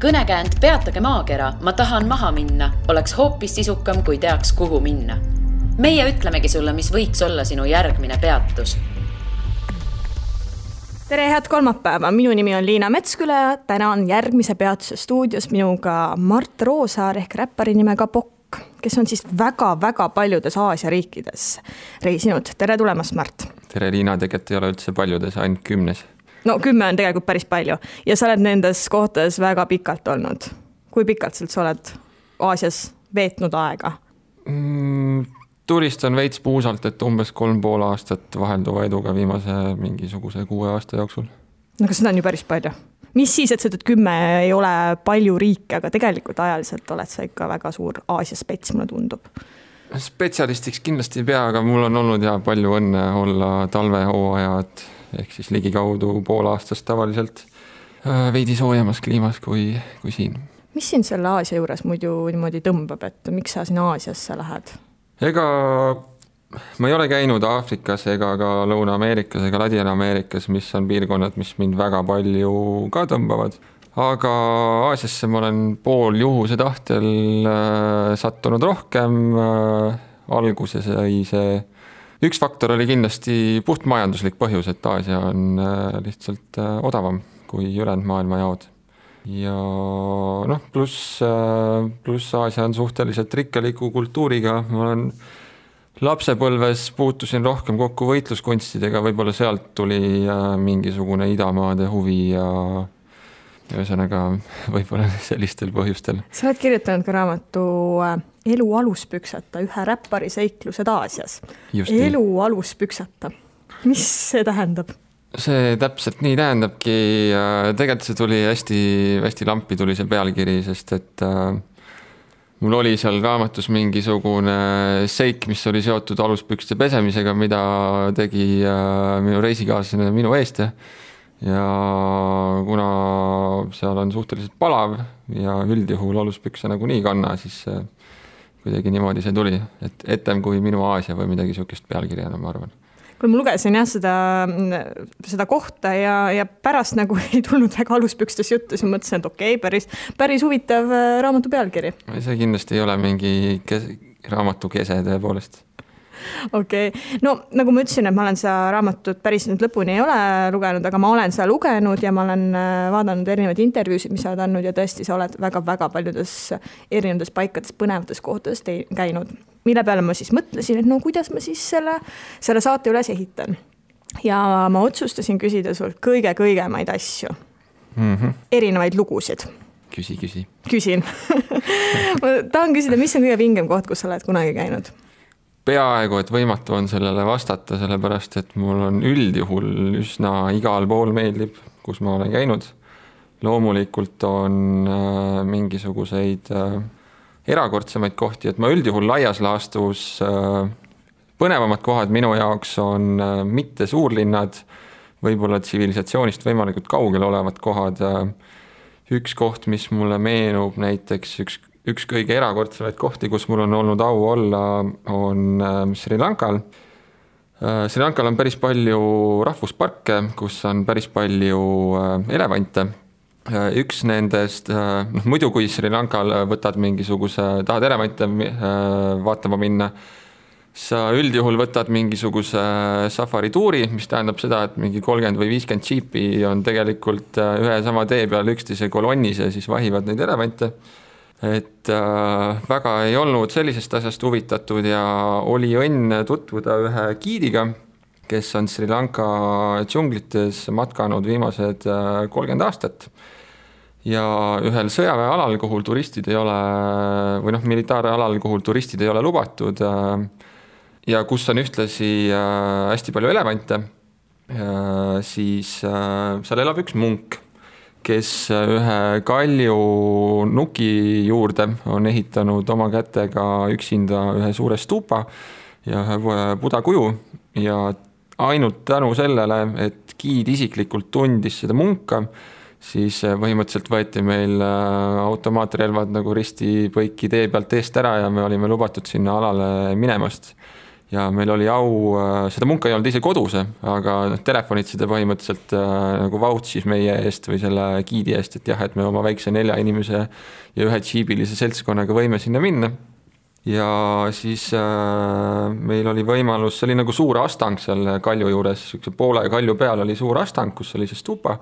Kõnekäänd Peatage maakera, ma tahan maha minna, oleks hoopis sisukam, kui teaks, kuhu minna. Meie ütlemegi sulle, mis võiks olla sinu järgmine peatus. Tere, head kolmapäeva. Minu nimi on Liina Metsküla ja täna on järgmise peatuse stuudios minuga Mart Roosaar ehk räppari nimega Pokk, kes on siis väga paljudes Aasia riikides reisinud. Tere tulemast, Mart. Tere, Liina, tegelikult ei ole üldse paljudes, ainult 10. No 10 on tegelikult päris palju ja sa oled nendes kohtades väga pikalt olnud. Kui pikalt sa oled Aasias veetnud aega? Turistan veits puusalt, et umbes 3,5 aastat vahelduva eduga viimase mingisuguse 6 aasta jooksul. No kas seda on ju päris palju? Mis siis, et sa ütled 10 ei ole palju riike, aga tegelikult ajaliselt oled sa ikka väga suur Aasia spets, mulle tundub. Spetsialistiks kindlasti ei pea, aga mul on olnud ja palju õnne olla talvehooajad ehk siis ligikaudu 0,5 aastast tavaliselt veidi soojemas kliimas kui siin. Mis siin selle Aasia juures muidu niimoodi tõmbab, et miks sa siin Aasiasse lähed? Ega ma ei ole käinud Aafrikas ega ka Lõuna-Ameerikas ega Ladina-Ameerikas, mis on piirkonnad, mis mind väga palju ka tõmbavad. Aga Aasiasse ma olen pool juhuse tahtel sattunud rohkem. Alguses sai see üks faktor oli kindlasti puht majanduslik põhjus, et Aasia on lihtsalt odavam kui ülejäänud maailma jaod. Ja pluss Aasia on suhteliselt rikkaliku kultuuriga. Ma olen lapsepõlves puutusin rohkem kokku võitluskunstidega, võib-olla sealt tuli mingisugune idamaade huvi ja ühesõnaga võib-olla sellistel põhjustel. Sa oled kirjutanud ka raamatu Elu aluspüksata, ühe räppari seiklused Aasias. Elu aluspüksata. Mis see tähendab? See täpselt nii tähendabki. Tegelikult see tuli hästi lampi tuli see pealkiri, sest et mul oli seal raamatus mingisugune seik, mis oli seotud aluspükste pesemisega, mida tegi minu reisikaaslane minu eest. Ja kuna seal on suhteliselt palav ja üldjuhul aluspükse nagu nii kanna, siis kuidagi niimoodi see tuli, et etem kui minu Aasia või midagi sukest pealkirjana, ma arvan. Kui ma lugesin seda kohta ja pärast nagu ei tulnud väga aluspükstes juttu, siis mõtlesin, et okei, päris huvitav raamatu pealkiri. See kindlasti ei ole mingi raamatu kese tõepoolest. Okei. No nagu ma ütlesin, et ma olen seda raamatut päris nüüd lõpuni ei ole lugenud, aga ma olen seda lugenud ja ma olen vaadanud erinevaid intervjuusid, mis sa oled andnud ja tõesti sa oled väga paljudes erinevates paikades põnevates kohtades käinud. Mille peale ma siis mõtlesin, et no kuidas ma siis selle saate üles ehitan. Ja ma otsustasin küsida sult kõige-kõigemaid asju. Erinevaid lugusid. Küsi. Küsin. Ma tahan küsida, mis on kõige vingem koht, kus sa oled kunagi käinud? Peaaegu, et võimatu on sellele vastata, sellepärast, et mul on üldjuhul üsna igal pool meeldib, kus ma olen käinud. Loomulikult on mingisuguseid erakordsemaid kohti, et ma üldjuhul laias laastus põnevamad kohad minu jaoks on mitte suurlinnad, võib-olla tsivilisatsioonist võimalikult kaugel olevad kohad. Üks koht, mis mulle meenub näiteks üks kõige erakordsemaid kohti, kus mul on olnud au olla, on Sri Lankal. Sri Lankal on päris palju rahvusparke, kus on päris palju elevante. Üks nendest, muidu kui Sri Lankal võtad tahad elevante vaatama minna, sa üldjuhul võtad mingisuguse safarituuri, mis tähendab seda, et mingi 30 või 50 džiipi on tegelikult ühe sama tee peal üksteise kolonnis ja siis vahivad neid elevante. Et väga ei olnud sellisest asjast huvitatud ja oli õnn tutvuda ühe giidiga, kes on Sri Lanka džunglites matkanud viimased 30 aastat. Ja ühel sõjaväealal, kuhu turistid ei ole, või militaaralal, kuhu turistid ei ole lubatud ja kus on ühtlasi hästi palju elevante, siis seal elab üks munk, kes ühe kalju nuki juurde on ehitanud oma kätega üksinda ühe suure stupa ja ühe Buda kuju ja ainult tänu sellele, et giid isiklikult tundis seda munka, siis põhimõtteliselt võeti meil automaatrelvad nagu risti põiki tee pealt eest ära ja me olime lubatud sinna alale minemast. ja meil oli au, seda munka ei olnud ise kodus, aga telefonid seda põhimõtteliselt nagu vautsis meie eest või selle giidi eest, et jah, et me oma väikse 4 inimese ja 1 džiibilise seltskonnaga võime sinna minna. Ja siis meil oli võimalus, see oli nagu suur astang seal kalju juures, poole kalju peal oli suur astang, kus oli see stupa.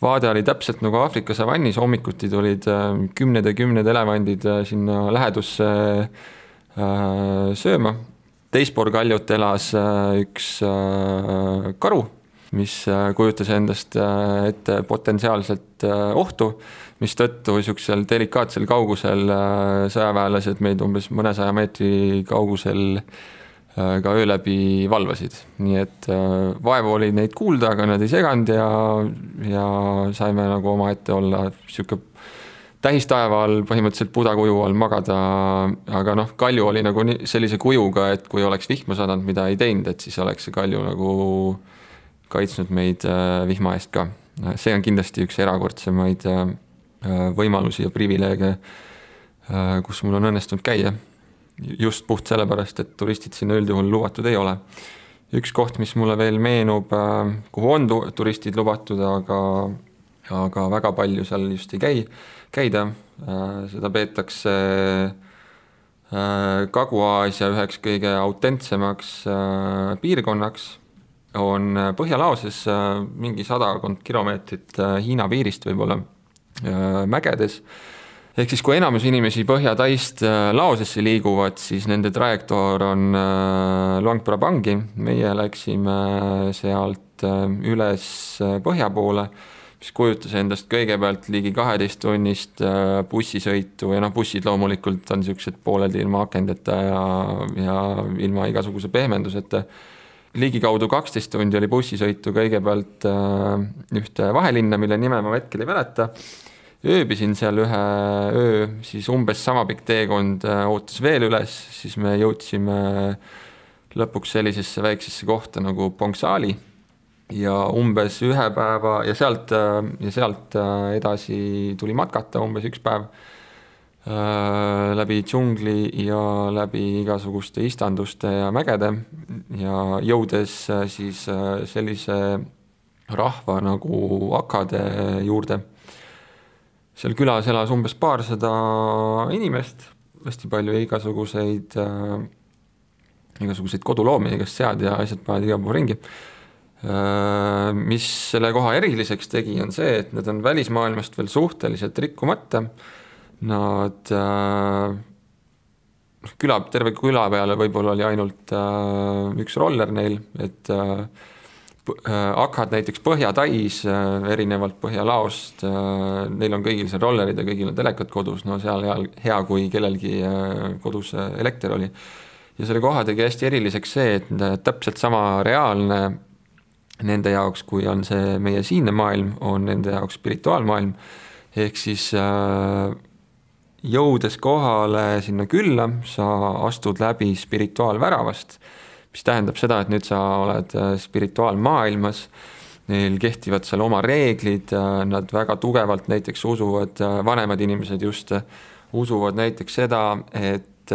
Vaade oli täpselt nagu Aafrika savannis, hommikuti tulid 10 elevandid sinna lähedusse sööma. Teispool kaljut elas üks karu, mis kujutas endast ette potentsiaalselt ohtu, mis tõttu niisugusel delikaatsel kaugusel sõjaväelased meid umbes mõnesaja meetri kaugusel ka öö läbi valvasid. Nii et vaevu oli neid kuulda, aga nad ei seganud ja saime nagu oma ette olla niisugune tähistaeva all, põhimõtteliselt pudakuju all magada, aga kalju oli nagu sellise kujuga, et kui oleks vihma sadanud, mida ei teinud, et siis oleks see kalju nagu kaitsnud meid vihma eest ka. See on kindlasti üks erakordsemaid võimalusi ja privileege, kus mul on õnnestunud käia. Just puht sellepärast, et turistid sinna üldjuhul lubatud ei ole. Üks koht, mis mulle veel meenub, kuhu on turistid lubatud, aga väga palju seal just ei käida. Seda peetakse Kagu-Aasia üheks kõige autentsemaks piirkonnaks. On Põhjalaoses mingi 100 kilomeetrit Hiina piirist võib-olla mägedes. Ehk siis kui enamus inimesi Põhja-Taist Laosesse liiguvad, siis nende trajektoor on Luang Prabangi. Meie läksime sealt üles põhja poole, mis kujutas endast kõigepealt ligi 12 tunnist bussisõitu ja bussid loomulikult on niisugused pooleldi ilma akendeta ja ilma igasuguse pehmenduseta. Ligikaudu 12 tundi oli bussisõitu kõigepealt ühte vahelinna, mille nime ma hetkel ei mäleta. Ööbisin seal ühe öö, siis umbes sama pikk teekond ootas veel üles, siis me jõudsime lõpuks sellisesse väiksesse kohta nagu Pongsaali ja umbes 1 päeva ja sealt edasi tuli matkata umbes 1 päev läbi džungli ja läbi igasuguste istanduste ja mägede ja jõudes siis sellise rahva nagu akade juurde. Seal külas elas umbes 200 inimest, hästi palju igasuguseid koduloomi, igast sead ja asjad paad iga pool ringi. Mis selle koha eriliseks tegi, on see, et need on välismaailmast veel suhteliselt rikkumata. Nad terve küla peale võib-olla oli ainult üks roller neil, et akad näiteks Põhja-Tais, erinevalt Põhja-Laost, neil on kõigil seal rollerid ja kõigil on telekad kodus, seal hea, kui kellelgi kodus elekter oli. Ja selle koha tegi hästi eriliseks see, et täpselt sama reaalne nende jaoks, kui on see meie siinne maailm, on nende jaoks spirituaalmaailm. Ehk siis jõudes kohale sinna külla, sa astud läbi spirituaalväravast, mis tähendab seda, et nüüd sa oled spirituaalmaailmas, neil kehtivad seal oma reeglid, nad väga tugevalt näiteks usuvad, vanemad inimesed just usuvad näiteks seda, et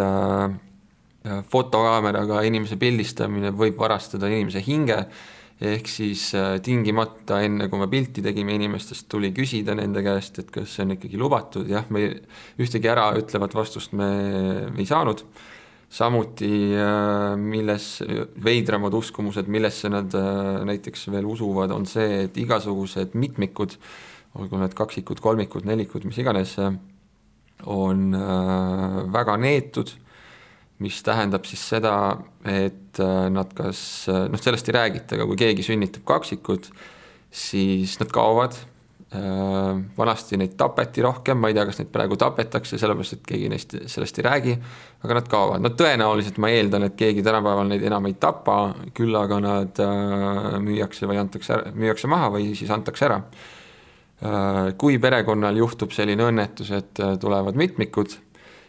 fotokaameraga inimese pildistamine võib varastada inimese hinge, ehk siis tingimata enne, kui me pilti tegime inimestest, tuli küsida nende käest, et kas see on ikkagi lubatud. Jah, me ühtegi ära ütlevat vastust me ei saanud. Samuti milles veidramad uskumused, millesse nad näiteks veel usuvad, on see, et igasugused mitmikud, olgu need kaksikud, kolmikud, nelikud, mis iganes, on väga neetud, mis tähendab siis seda, et nad kas, sellest ei räägita, aga kui keegi sünnitab kaksikud, siis nad kaovad. Vanasti neid tapeti rohkem, ma ei tea, kas neid praegu tapetakse, sellepärast, et keegi neist sellest ei räägi, aga nad kaovad. Tõenäoliselt ma eeldan, et keegi tänapäeval neid enam ei tapa, küll aga nad müüakse maha või siis antakse ära. Kui perekonnal juhtub selline õnnetus, et tulevad mitmikud,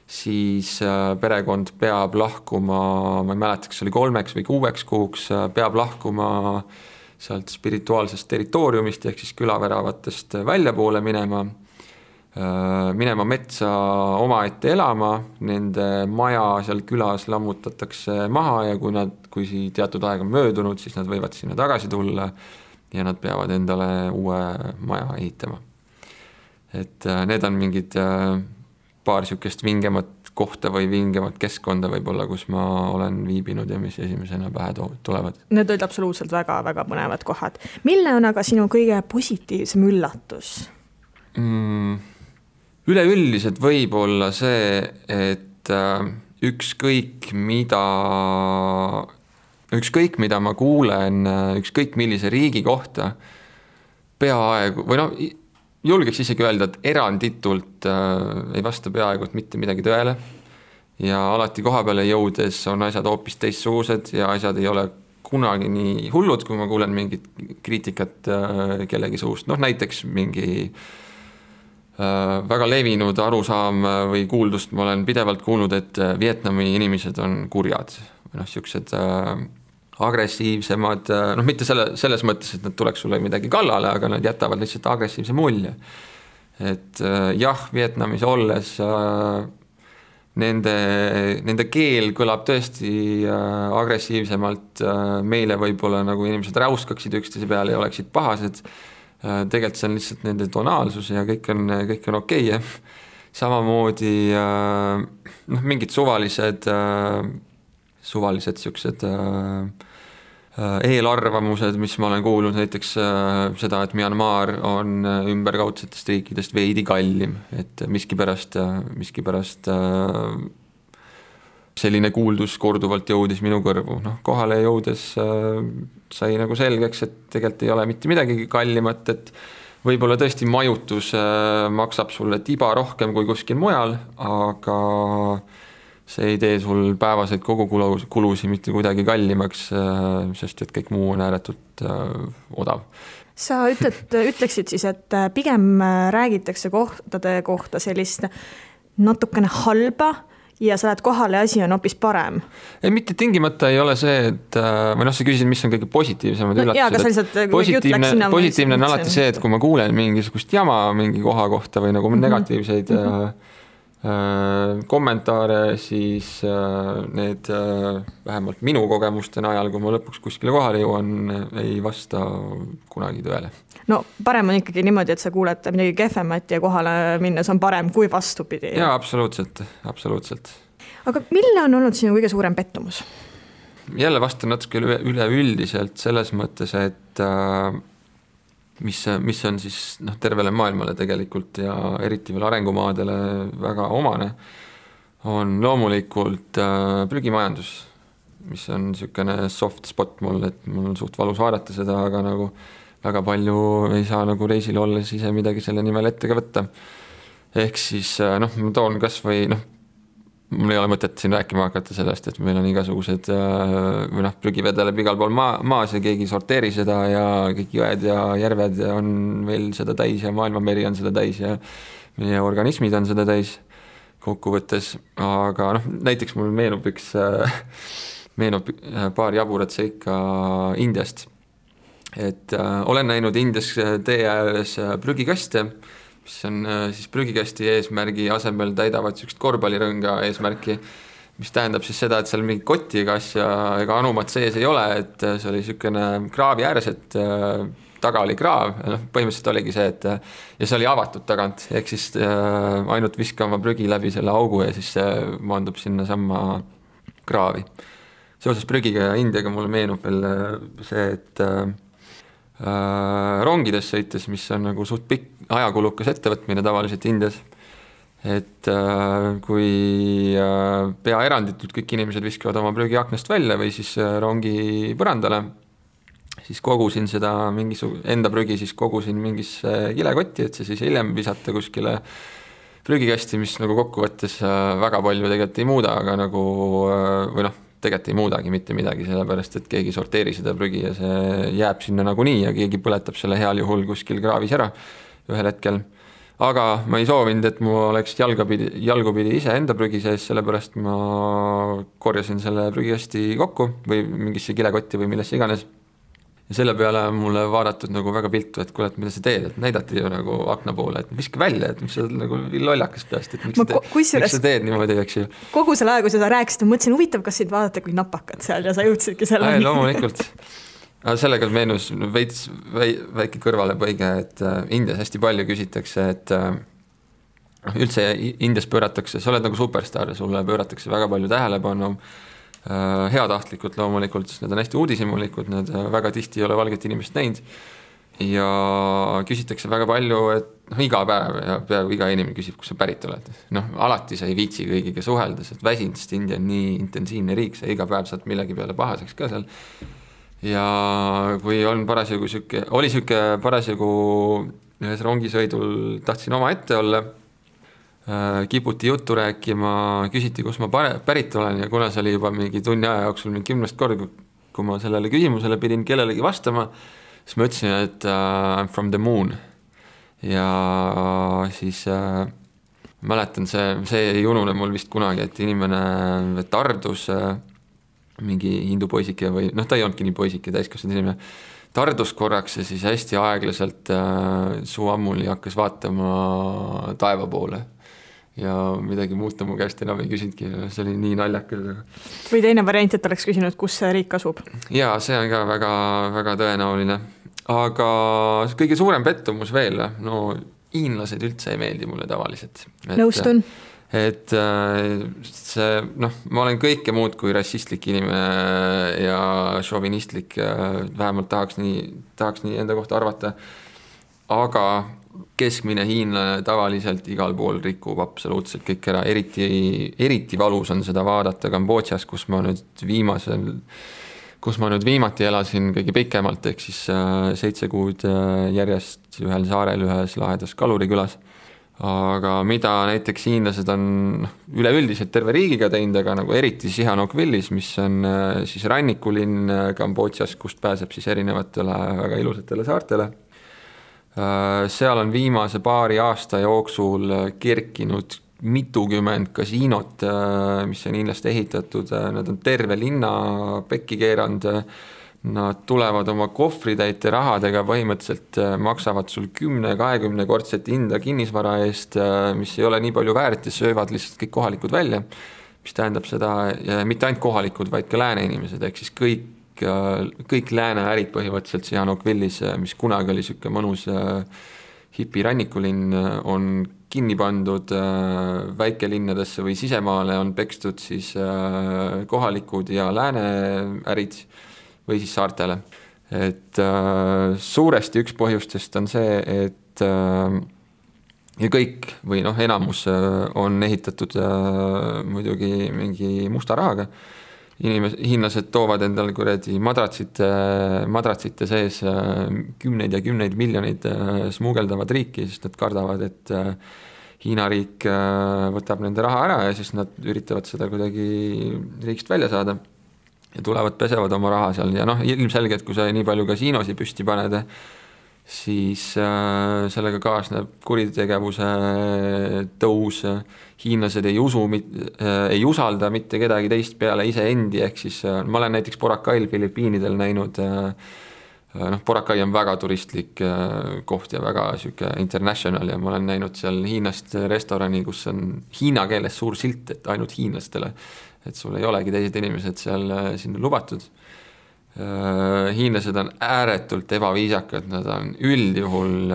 siis perekond peab lahkuma, ma ei mäleta, kas oli 3 või 6 kuuks, peab lahkuma sealt spirituaalsest territooriumist ehk siis külaväravatest välja poole minema. minema metsa omaette elama, nende maja seal külas lammutatakse maha ja kui teatud aeg on möödunud, siis nad võivad sinna tagasi tulla ja nad peavad endale uue maja ehitama. Et need on mingid paar sükest vingemat kohta või vingemat keskkonda võib-olla, kus ma olen viibinud ja mis esimesena pähe tulevad. Need olid absoluutselt väga-väga põnevad kohad. Mille on aga sinu kõige positiivsem üllatus? Üleüldiselt võib olla see, et ükskõik mida ma kuulen, ükskõik millise riigi kohta, peaaegu, või julgeks isegi öelda, et eranditult ei vasta peaaegu mitte midagi tõele ja alati koha peale jõudes on asjad hoopis teistsugused ja asjad ei ole kunagi nii hullud, kui ma kuulen mingit kriitikat kellegi suust. Näiteks mingi väga levinud arusaam või kuuldust ma olen pidevalt kuulnud, et Vietnami inimesed on kurjad või siuksed agressiivsemad, mitte selles mõttes, et nad tuleks sulle midagi kallale, aga nad jätavad lihtsalt agressiivse mulje. Et jah, Vietnamis olles nende keel kõlab tõesti agressiivsemalt, meile võib-olla nagu inimesed räuskaksid üksteise peale ja oleksid pahased, tegelikult see on lihtsalt nende tonaalsus ja kõik on okei. Samamoodi mingid suvalised siuksed eelarvamused, mis ma olen kuulnud, näiteks seda, et Myanmar on ümberkaudsetest riikidest veidi kallim, et miskipärast selline kuuldus korduvalt jõudis minu kõrvu. Kohale jõudes sai nagu selgeks, et tegelikult ei ole mitte midagi kallimat, et võib-olla tõesti majutus maksab sulle tiba rohkem kui kuskil mujal, aga see ei tee sul päevaseid kogukulusi mitte kuidagi kallimaks, sest et kõik muu on ääretult odav. Sa ütleksid siis, et pigem räägitakse kohtade kohta sellist natukene halba ja sa lähed kohale ja asi on hoopis parem. Ei, mitte tingimata ei ole see, et sa küsisid, mis on kõige positiivsemad üllatused. Positiivne on alati see, et kui ma kuulen mingisugust jama mingi koha kohta või nagu negatiivseid kommentaare, siis need vähemalt minu kogemuste najal, kui ma lõpuks kuskile kohale jõuan, ei vasta kunagi tõele. No parem on ikkagi niimoodi, et sa kuuled midagi kehvemat ja kohale minnes on parem kui vastupidi. Jaa, absoluutselt. Aga mille on olnud sinu kõige suurem pettumus? Jälle vastan natuke üleüldiselt selles mõttes, et mis on siis tervele maailmale tegelikult ja eriti veel arengumaadele väga omane, on loomulikult prügimajandus, mis on niisugune soft spot mul, et mul on suht valus vaadata seda, aga nagu väga palju ei saa nagu reisil olles ise midagi selle nimel ette ka võtta. Ehk siis ma toon kas või mul ei ole mõtet siin rääkima hakata sellest, et meil on igasugused prügivedeleb igal pool maas ja keegi sorteeri seda ja kõik jõed ja järved on veel seda täis ja maailmameri on seda täis ja meie organismid on seda täis kokkuvõttes. Aga näiteks mul meenub paar jaburat seika Indiast. Et olen näinud Indias tee ääres prügikaste, mis on siis prügikasti eesmärgi asemel täidavad sükst korvpallirõnga eesmärki, mis tähendab siis seda, et seal mingi kotti ega anumat sees ei ole, et see oli sükene kraavi ääres, et taga oli kraav, põhimõtteliselt oligi see, et ja see oli avatud tagant, ehk siis ainult viskama prügi läbi selle augu ja siis see maandub sinna samma kraavi. Seoses prügiga ja Indiaga mulle meenub veel see, et rongides sõites, mis on nagu suht pikk ajakulukas ettevõtmine tavaliselt Indias, et kui pea eranditult kõik inimesed viskavad oma prügi aknast välja või siis rongi põrandale, siis kogusin seda enda prügi, siis kogusin mingisse kilekotti, et see siis hiljem visata kuskile prügikasti, mis nagu kokkuvõttes väga palju tegelikult ei muuda, aga nagu tegelikult ei muudagi mitte midagi, sellepärast, et keegi sorteeri seda prügi ja see jääb sinna nagunii ja keegi põletab selle heal juhul kuskil kraavis ära ühel hetkel. Aga ma ei soovinud, et mu oleks jalgupidi ise enda prügi sees, sellepärast ma korjasin selle prügikasti kokku või mingisse kilekotti või millesse iganes. ja selle peale on mulle vaadatud nagu väga viltu, et kuule, et mida sa teed, et näidati ju nagu akna poole, et viska välja, et mis sa nagu lollakas peast, et miks sa teed niimoodi, eks ju. Kogu selle aja, kui sa rääkisid, mõtlesin huvitav, kas sind vaadata kui napakad seal ja sa jõudsidki selle. Loomulikult. Sellega meenus veits väike kõrvalepõige, et Indias hästi palju küsitakse, et üldse Indias pööratakse, sa oled nagu superstar ja sulle pööratakse väga palju tähelepanu, heatahtlikult loomulikult, sest need on hästi uudishimulikud, need väga tihti ei ole valget inimest näinud ja küsitakse väga palju, et iga päev ja peaaegu iga inimene küsib, kus sa pärit oled. Alati sa ei viitsi kõigiga suhelda, sest väsinud, sest India on nii intensiivne riik, sa iga päev saad millegi peale pahaseks ka seal. Ja kui on oli parasjagu ühes rongisõidul tahtsin oma ette olla, kiputi juttu rääkima, küsiti, kus ma pärit olen ja kuna see oli juba mingi tunni aja jooksul 10 korda, kui ma sellele küsimusele pidin kellelegi vastama, siis ma ütlesin, et I'm from the moon. Ja siis mäletan, see ei unune mul vist kunagi, et inimene tardus, mingi hindu poisike või, ta ei olnudki nii poisike, täiskasvanud inimene, tardus korraks ja siis hästi aeglaselt suu ammuli hakkas vaatama taeva poole. Ja midagi muuta mu käest enam ei küsinudki, see oli nii naljakas. Või teine variant, et oleks küsinud, kus see riik asub? Jaa, see on ka väga, väga tõenäoline. Aga kõige suurem pettumus veel, hiinlased üldse ei meeldi mulle tavaliselt. Nõustun. Et see, ma olen kõike muud kui rassistlik inimene ja šovinistlik, vähemalt tahaks nii enda kohta arvata, aga keskmine hiinlane tavaliselt igal pool rikub absoluutselt kõik ära, eriti valus on seda vaadata Kambodžas, kus ma nüüd viimati elasin kõige pikemalt, ehk siis 7 kuud järjest ühel saarel ühes lahedas kalurikülas. Aga mida näiteks hiinlased on üleüldiselt terve riigiga teinud, aga nagu eriti Sihanoukvillis, mis on siis rannikulinn Kambodžas, kust pääseb siis erinevatele väga ilusatele saartele. Seal on viimase paari aasta jooksul kerkinud mitukümmend kasiinot, mis on hiinlaste ehitatud, nad on terve linna pekki keeranud, nad tulevad oma kohvritäite rahadega, põhimõtteliselt maksavad sul 10-20 kordset hinda kinnisvara eest, mis ei ole nii palju väärt ja söövad lihtsalt kõik kohalikud välja, mis tähendab seda, mitte ainult kohalikud, vaid ka lääne inimesed, ehk siis kõik lääne ärid põhimõtteliselt Sihanoukvillis, mis kunagi oli siuke mõnus hipi rannikulinn, on kinni pandud väikelinnadesse või sisemaale, on pekstud siis kohalikud ja lääne ärid või siis saartele. Et suuresti üks põhjustest on see, et ja kõik või enamus on ehitatud muidugi mingi musta rahaga. Hiinlased toovad endal madratsite sees 10 ja 10 miljonid smuugeldavad riiki, sest nad kardavad, et Hiina riik võtab nende raha ära ja siis nad üritavad seda kuidagi riigist välja saada ja tulevad, pesevad oma raha seal ja ilmselgelt, kui sa nii palju kasiinosi püsti paned, siis sellega kaasneb kuritegevuse tõus, hiinlased ei usalda mitte kedagi teist peale iseendi, ehk siis ma olen näiteks Boracail Filipiinidel näinud, Boracay on väga turistlik koht ja väga siuke international ja ma olen näinud seal Hiinast restorani, kus on hiina keeles suur silt, et ainult hiinlastele, et sul ei olegi teised inimesed seal sinna lubatud. Hiinlased on ääretult ebaviisakad, nad on üldjuhul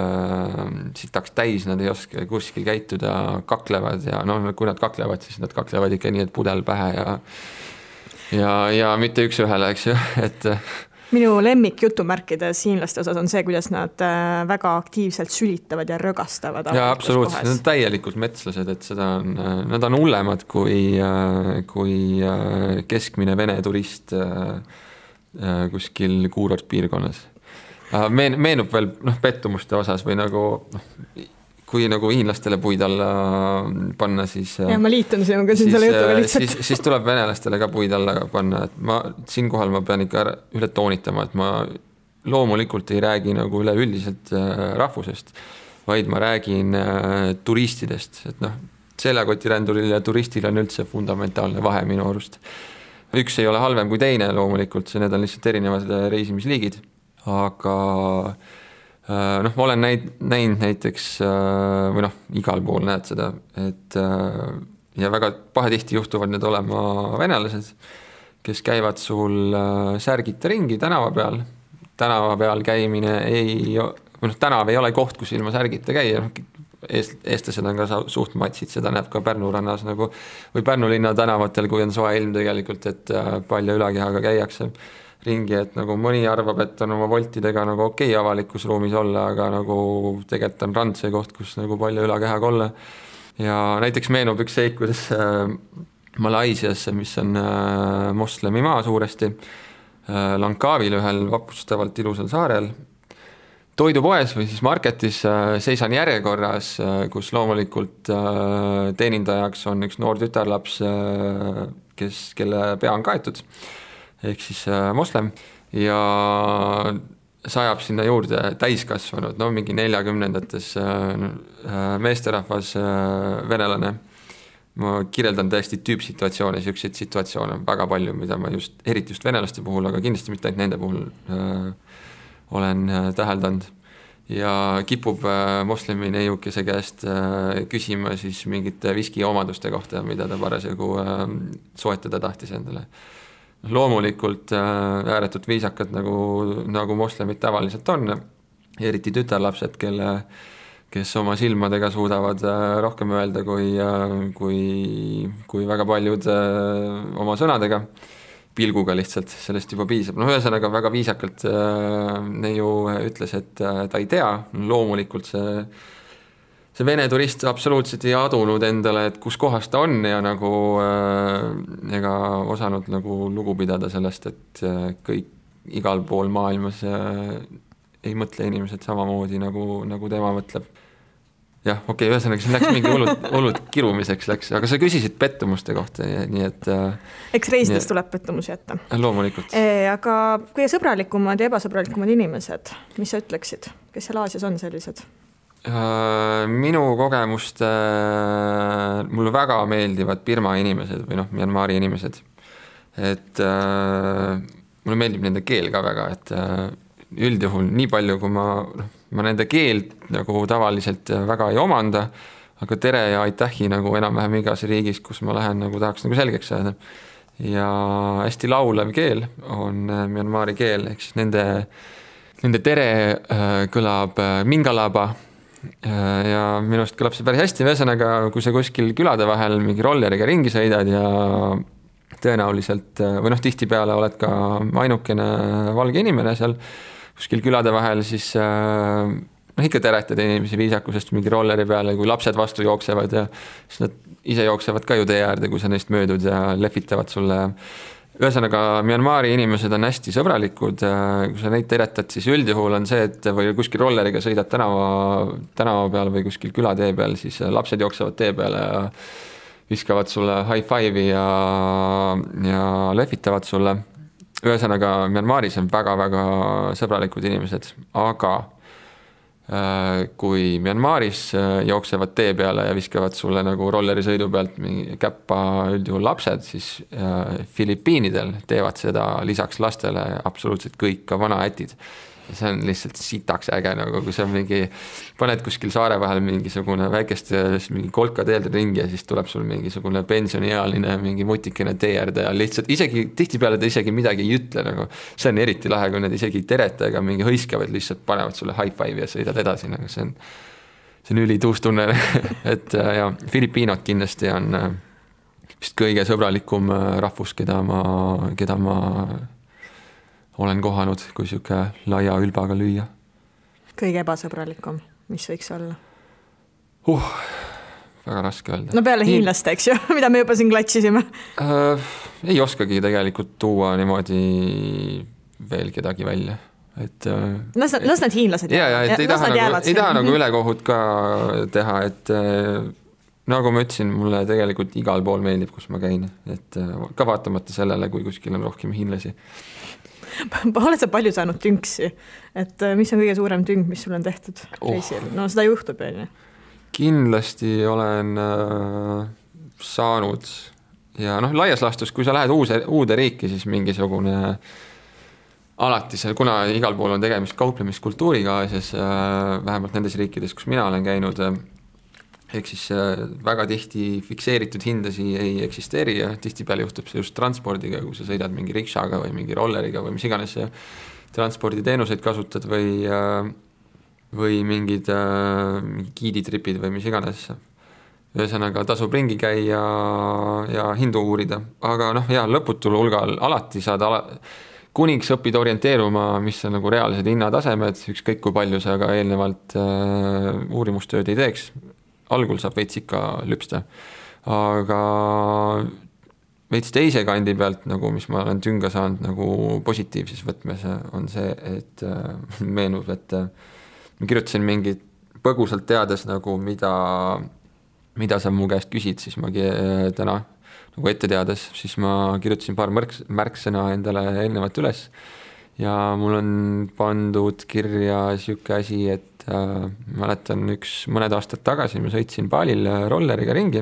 sitaks täis, nad ei oska kuskil käituda, kaklevad ja kui nad kaklevad, siis nad kaklevad ikka nii, et pudel pähe ja mitte üks ühele, eks ju, et minu lemmik jutumärkides hiinlaste osas on see, kuidas nad väga aktiivselt sülitavad ja rögastavad. Ja absoluutselt, nad on täielikult metslased, et nad on hullemad kui keskmine vene turist kuskil kuurortpiirkonnas. Meenub veel pettumuste osas või kui hiinlastele puid alla panna, siis ja ma liitun sinuga siin selle jutuga lihtsalt. Siis tuleb venelastele ka puid alla panna, et siinkohal ma pean ikka üle toonitama, et ma loomulikult ei räägi üleüldiselt rahvusest, vaid ma räägin turistidest, et seljakotiränduril ja turistil on üldse fundamentaalne vahe minu arust. Üks ei ole halvem kui teine loomulikult, need on lihtsalt erinevad reisimisliigid, aga noh, ma olen näinud näiteks või noh, igal pool näed seda, et ja väga pahatihti juhtuvad need olema venelased, kes käivad sul särgita ringi tänava peal. Tänava peal käimine tänav ei ole koht, kus ilma särgita käia. Eestlased on ka suht matsid, seda näeb ka Pärnu rannas nagu, või Pärnu linna tänavatel, kui on soe ilm tegelikult, et palju ülakehaga käiakse ringi, et nagu mõni arvab, et on oma voltidega nagu okei avalikus ruumis olla, aga nagu tegelikult on rand see koht, kus nagu palju ülakehaga olla. Ja näiteks meenub üks seik, kuidas Malaisiasse, mis on moslemi maa suuresti, Langkavil ühel vapustavalt ilusal saarel, toidupoes või siis marketis seisan järjekorras, kus loomulikult teenindajaks on üks noor tütarlaps, kelle pea on kaetud, ehk siis moslem, ja sajab sinna juurde täiskasvanud, no mingi 40-ndates meesterahvas venelane. Ma kirjeldan tõesti tüüpsituatsioone, siukseid situatsioone väga palju, mida ma eriti just venelaste puhul, aga kindlasti mitte ainult nende puhul olen täheldanud. Ja kipub moslemi neiukese käest küsima siis mingite viski omaduste kohta, mida ta parasjagu soetada tahtis endale. Loomulikult ääretult viisakad, nagu moslemid tavaliselt on, eriti tütarlapsed, kes oma silmadega suudavad rohkem öelda kui väga paljud oma sõnadega, pilguga lihtsalt, sellest juba piisab. No ühesõnaga väga viisakalt neiu ütles, et ta ei tea, loomulikult see vene turist absoluutselt ei adunud endale, et kus kohas ta on ja nagu ega osanud nagu lugu pidada sellest, et kõik igal pool maailmas ei mõtle inimesed samamoodi, nagu tema mõtleb. Jah, okei, ühesõnaga, siin läks mingi hullud kirumiseks läks, aga sa küsisid pettumuste kohta, nii et eks reisides tuleb pettumusi jätta. Loomulikult. Aga kui sõbralikumad ja ebasõbralikumad inimesed, mis sa ütleksid, kes seal Aasias on sellised? Minu kogemust mulle väga meeldivad Birma inimesed või Myanmari inimesed, et mulle meeldib nende keel ka väga, et üldjuhul nii palju, kui ma nende keelt nagu tavaliselt väga ei omanda, aga tere ja aitähi nagu enam-vähem igas riigis, kus ma lähen, nagu tahaks nagu selgeks saada. Ja hästi laulev keel on Myanmari keel, ehk siis nende tere kõlab mingalaba ja minust kõlab see päris hästi. Ühesõnaga, kui sa kuskil külade vahel mingi rolleriga ringi sõidad ja tõenäoliselt või tihtipeale oled ka ainukene valge inimene seal kuskil külade vahel, siis ikka teretad inimesi viisakusest mingi rolleri peale, kui lapsed vastu jooksevad ja siis nad ise jooksevad ka ju tee äärde, kui sa neist möödud ja lehvitavad sulle. Ühesõnaga, Myanmari inimesed on hästi sõbralikud, kui sa neid teretad, siis üldjuhul on see, et või kuskil rolleriga sõidad tänava peal või kuskil külatee peal, siis lapsed jooksevad tee peale ja viskavad sulle high five'i ja lehvitavad sulle. Ühesõnaga, Myanmaris on väga-väga sõbralikud inimesed, aga kui Myanmaris jooksevad tee peale ja viskavad sulle nagu rolleri sõidu pealt mingi käppa üldjuhul lapsed, siis Filipiinidel teevad seda lisaks lastele absoluutselt kõik, ka vanaätid. See on lihtsalt sitaks äge, nagu kui sa paned kuskil saare vahel mingisugune väikeste mingi kolka teelde ringi ja siis tuleb sul mingisugune pensioniealine mingi mutikene tee äärde ja lihtsalt isegi tihtipeale ta isegi midagi ei ütle, nagu see on eriti lahe, kui nad isegi ei tereta ega mingi hõiskavad, lihtsalt panevad sulle high five ja sõidad edasi, nagu see on ülituus tunne. Et ja Filipiinod kindlasti on vist kõige sõbralikum rahvus, keda ma olen kohanud, kui siuke laia ülbaga lüüa. Kõige ebasõbralikum, mis võiks olla? Väga raske öelda. No peale hiinlaste, eks ju, mida me juba siin klatsisime. Ei oskagi tegelikult tuua niimoodi veel kedagi välja. Las need hiinlased jäävad. Ei taha nagu ülekohut ka teha, et nagu ma ütlesin, mulle tegelikult igal pool meeldib, kus ma käin, et ka vaatamata sellele, kui kuskil on rohkem hiinlasi. Oled sa palju saanud tünksi, et mis on kõige suurem tünk, mis sul on tehtud reisil? No seda juhtub, on ju. Kindlasti olen saanud ja laias laastus, kui sa lähed uude riiki, siis mingisugune alati see, kuna igal pool on tegemist kauplemiskultuuriga Aasias, vähemalt nendes riikides, kus mina olen käinud, ehk siis väga tihti fikseeritud hindasi ei eksisteeri ja tihtipeale juhtub see just transpordiga, kui sa sõidad mingi rikšaga või mingi rolleriga või mis iganes transporditeenuseid kasutad või mingid giiditripid või mis iganes. Ühesõnaga tasub ringi käia ja hindu uurida, aga lõputul hulgal alati saad kuniks õpid orienteeruma, mis on nagu reaalsed hinnatasemed, ükskõik kui palju sa aga eelnevalt uurimustööd ei teeks. Algul saab veits ikka lüpsta, aga veits teise kandi pealt, nagu mis ma olen tünga saanud nagu positiivses võtmes, on see, et meenub, et ma kirjutasin mingit põgusalt teades nagu mida sa mu käest küsid, siis ma täna nagu ette teades, siis ma kirjutasin paar märksõna endale eelnevalt üles ja mul on pandud kirja siuke asi, et mäletan mõned aastad tagasi ma sõitsin Balil rolleriga ringi.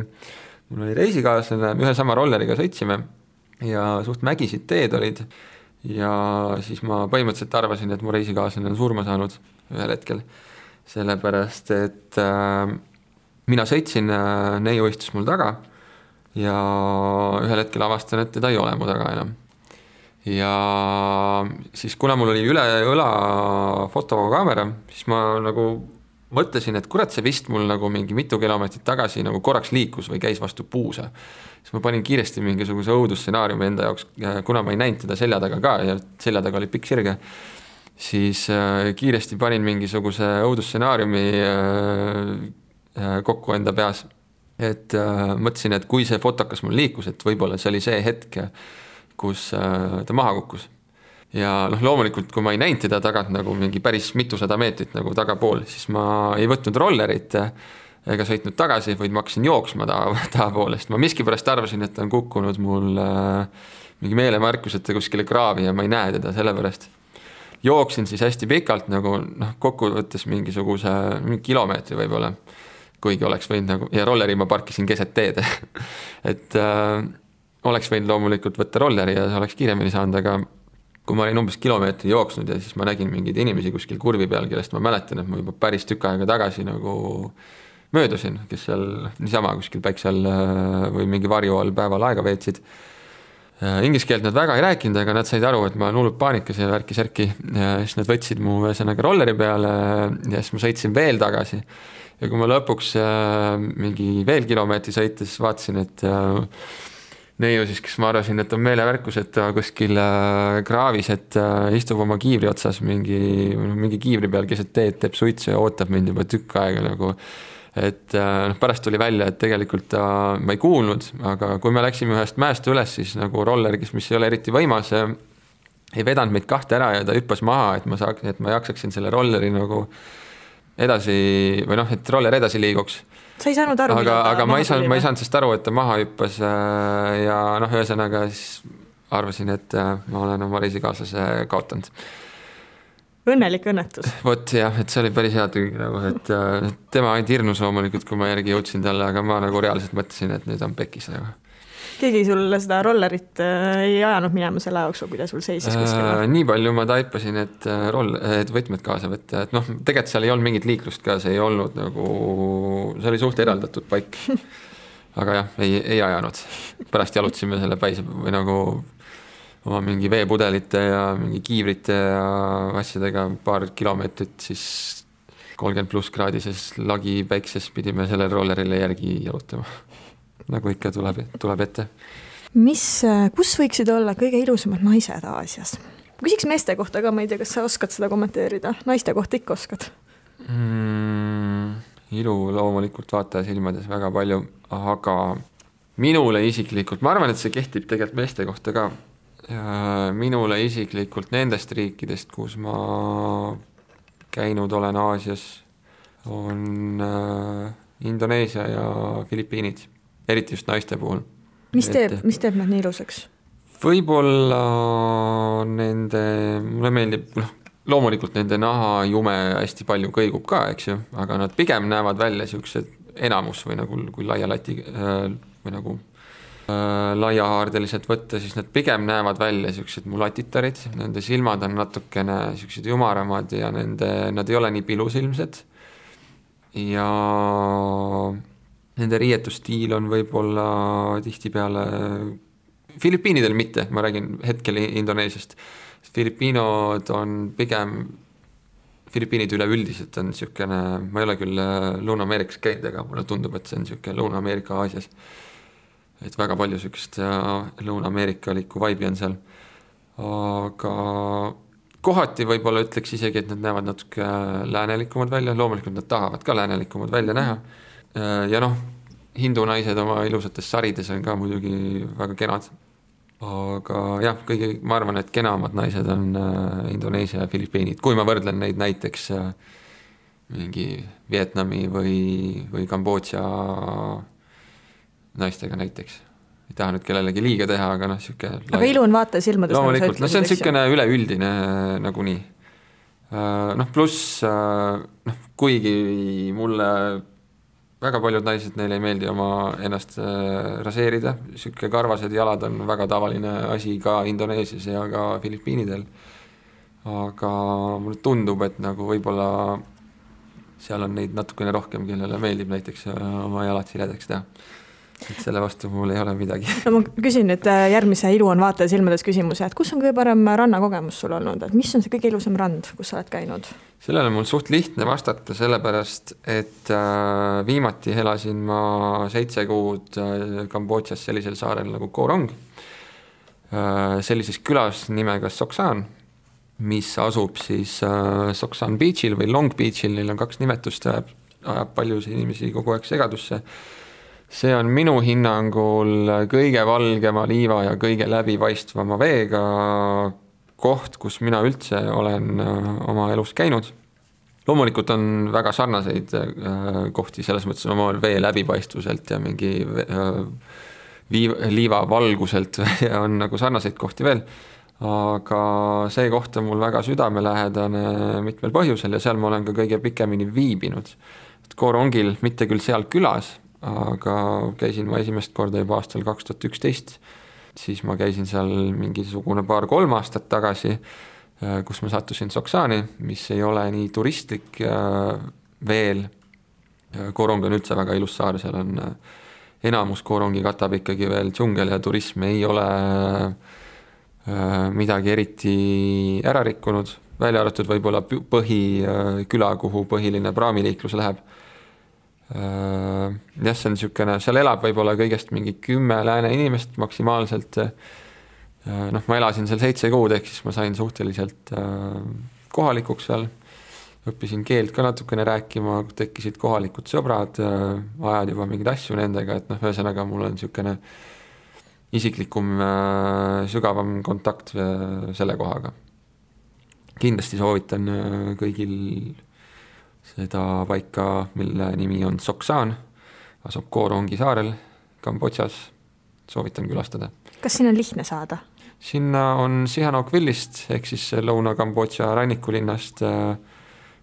Mul oli reisikaaslane, ühe sama rolleriga sõitsime ja suht mägisid teed olid ja siis ma põhimõtteliselt arvasin, et mu reisikaaslane on surma saanud ühel hetkel, sellepärast et mina sõitsin, neiu istus mul taga ja ühel hetkel avastan, et teda ei ole mu taga enam. Ja siis kuna mul oli üle õla fotokaamera, siis ma nagu mõtlesin, et kurat, see vist mul nagu mingi mitu kilomeetrit tagasi nagu korraks liikus või käis vastu puusa. Siis ma panin kiiresti mingisuguse õudusstsenaariumi enda jaoks, kuna ma ei näinud teda selja taga ka ja selja taga oli pikk sirge, siis kiiresti panin mingisuguse õudusstsenaariumi kokku enda peas. Et mõtlesin, et kui see fotokas mul liikus, et võib-olla see oli see hetk, kus ta maha kukkus. Ja loomulikult, kui ma ei näinud teda tagant nagu mingi päris mitusada meetrit nagu tagapool, siis ma ei võtnud rollerit ega sõitnud tagasi, vaid ma hakkasin jooksma tahapoolest. Ma miskipärast arvasin, et ta on kukkunud mul mingi meelemärkuseta kuskile kraavi ja ma ei näe teda sellepärast. Jooksin siis hästi pikalt nagu kokku võttes mingi kilomeetri võib-olla, kuigi oleks võinud nagu, ja rolleri ma parkisin keset teed. Et oleks võinud loomulikult võtta rolleri ja see oleks kiiremini saanud, aga kui ma olin umbes kilomeetri jooksnud ja siis ma nägin mingeid inimesi kuskil kurvi peal, kellest ma mäletan, et ma juba päris tükk aega tagasi nagu möödusin, kes seal niisama kuskil päiksel või mingi varju all päeval aega veetsid. Inglise keelt nad väga ei rääkinud, aga nad said aru, et ma olen hullult paanikas ja värki-särki ja siis nad võtsid mu ühesõnaga rolleri peale ja siis ma sõitsin veel tagasi. Ja kui ma lõpuks mingi veel kilomeetri sõites vaatasin, et neiu siis, kes ma arvasin, et on meelevärkus, et ta kuskil kraavis, et istub oma kiivri otsas mingi kiivri peal keset teed, teeb suitsu ja ootab mind juba tükk aega nagu. Et pärast tuli välja, et tegelikult ma ei kuulnud, aga kui me läksime ühest mäest üles, siis nagu roller, mis ei ole eriti võimas, ei vedanud meid kahte ära ja ta hüppas maha, et ma jaksaksin selle rolleri nagu edasi või et roller edasi liiguks. Sa ei saanud aru, aga ma ei saanud sest aru, et ta maha hüppas ja ühesõnaga siis arvasin, et ma olen oma reisikaaslase kaotanud. Õnnelik õnnetus. Vot jah, et see oli päris hea tüü, nagu, et tema ainult hirnus loomulikult, kui ma järgi jõudsin talle, aga ma nagu reaalselt mõtlesin, et nüüd on pekis nagu. Keegi sulle seda rollerit ei ajanud minema selle jooksul, kui ta sul seisis kuskil? Nii palju ma taipasin, et võtmed kaasa võtta, et tegelikult seal ei olnud mingit liiklust ka, see ei olnud nagu, see oli suht eraldatud paik. Aga jah, ei ajanud. Pärast jalutsime selle päise või nagu oma mingi veepudelite ja mingi kiivrite ja asjadega paar kilomeetrit siis 30+ kraadises lagi päikses pidime selle rollerile järgi jalutama. Nagu ikka tuleb ette. Kus võiksid olla kõige ilusamad naised Aasias? Küsiks meeste kohta ka, ma ei tea, kas sa oskad seda kommenteerida? Naiste kohta ikka oskad? Ilu loomulikult vaataja silmades väga palju, aga minule isiklikult, ma arvan, et see kehtib tegelikult meeste kohta ka. Minule isiklikult nendest riikidest, kus ma käinud olen Aasias, on Indoneesia ja Filipiinid. Eriti just naiste puhul. Mis teeb nad nii ilusaks? Võib-olla mulle meeldib, loomulikult nende naha jume hästi palju kõigub ka, eks ju, aga nad pigem näevad välja siuksed enamus või nagu kui laia lati või nagu laiahaardeliselt võtta, siis nad pigem näevad välja siuksed mulatitarid, nende silmad on natukene siuksed jumaramad ja nad ei ole nii pilusilmsed ja nende riietusstiil on võib-olla tihtipeale Filipiinidel mitte, ma räägin hetkel Indoneesiast. Filipiinod on pigem Filipiinid üleüldiselt on siukene, ma ei ole küll Lõuna-Ameerikas käinud, aga mulle tundub, et see on siuke Lõuna-Ameerika Aasias. Et väga palju siukest Lõuna-Ameerikalikku vibe'i on seal. Aga kohati võib-olla ütleks isegi, et nad näevad natuke läänelikumad välja, loomulikult nad tahavad ka läänelikumad välja näha. Ja hindu naised oma ilusates sarides on ka muidugi väga kenad. Aga jah, ma arvan, et kenamad naised on Indoneesia ja Filipiinid, kui ma võrdlen neid näiteks mingi Vietnami või Kambodža naistega näiteks. Ei taha nüüd kellelegi liiga teha, aga siuke... Aga ilu on vaata silmades. Loomulikult, see on siukene üleüldine nagunii. Pluss, kuigi mulle väga paljud naised, neile ei meeldi oma ennast raseerida, siuke karvased jalad on väga tavaline asi ka Indoneesias ja ka Filipiinidel. Aga mulle tundub, et võib-olla seal on neid natukene rohkem, kellele meeldib näiteks oma jalad siledaks teha. Et selle vastu mul ei ole midagi. No ma küsin nüüd järgmise ilu on vaataja silmades küsimuse, et kus on kõige parem rannakogemus sul olnud, et mis on see kõige ilusam rand, kus sa oled käinud? Sellele mul suht lihtne vastata, sellepärast, et viimati elasin ma 7 kuud Kambodžas sellisel saarel nagu Koh Rong, sellises külas nimega Soksan, mis asub siis Soksan Beachil või Long Beachil, neil on 2 nimetust, ajab paljusid inimesi kogu aeg segadusse. See on minu hinnangul kõige valgema liiva ja kõige läbipaistvama veega koht, kus mina üldse olen oma elus käinud. Loomulikult on väga sarnaseid kohti, selles mõttes oma vee läbipaistvuselt ja mingi liiva valguselt on sarnaseid kohti veel. Aga see koht on mul väga südamelähedane mitmel põhjusel ja seal ma olen ka kõige pikemini viibinud. Koh Rongil, mitte küll seal külas, aga käisin ma esimest korda juba aastal 2011, siis ma käisin seal mingisugune 2-3 aastat tagasi, kus ma sattusin Soksani, mis ei ole nii turistlik veel. Koh Rong on üldse väga ilus saar, seal on enamus Koh Rongi katab ikkagi veel džungel ja turism ei ole midagi eriti ära rikkunud, välja arvatud võib-olla põhiküla, kuhu põhiline praamiliiklus läheb. Jah, see on siukene, seal elab võib-olla kõigest mingi 10 lääne inimest maksimaalselt. Ma elasin seal 7 kuud, ehk siis ma sain suhteliselt kohalikuks seal. Õppisin keelt ka natukene rääkima, tekkisid kohalikud sõbrad, ajad juba mingeid asju nendega, et ühesõnaga mul on siukene isiklikum, sügavam kontakt selle kohaga. Kindlasti soovitan kõigil seda paika, mille nimi on Soksan, asub Koh Rongi saarel Kambodžas, soovitan külastada. Kas siin on lihtne saada? Sinna on Sihanoukvillist, ehk siis Lõuna-Kambodža rannikulinnast,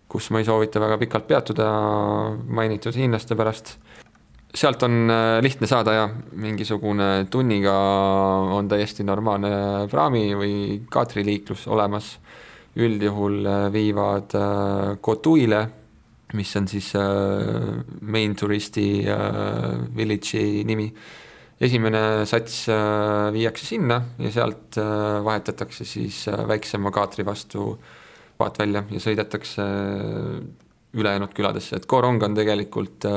kus ma ei soovita väga pikalt peatuda mainitud hiinlaste pärast. Sealt on lihtne saada ja mingisugune tunniga on täiesti normaalne praami või kaatriliiklus olemas. Üldjuhul viivad Kotuile, mis on siis main turisti village'i nimi. Esimene sats viiakse sinna ja sealt vahetatakse siis väiksema kaatri vastu vaat välja ja sõidetakse ülejäänud küladesse. Et Koh Rong on tegelikult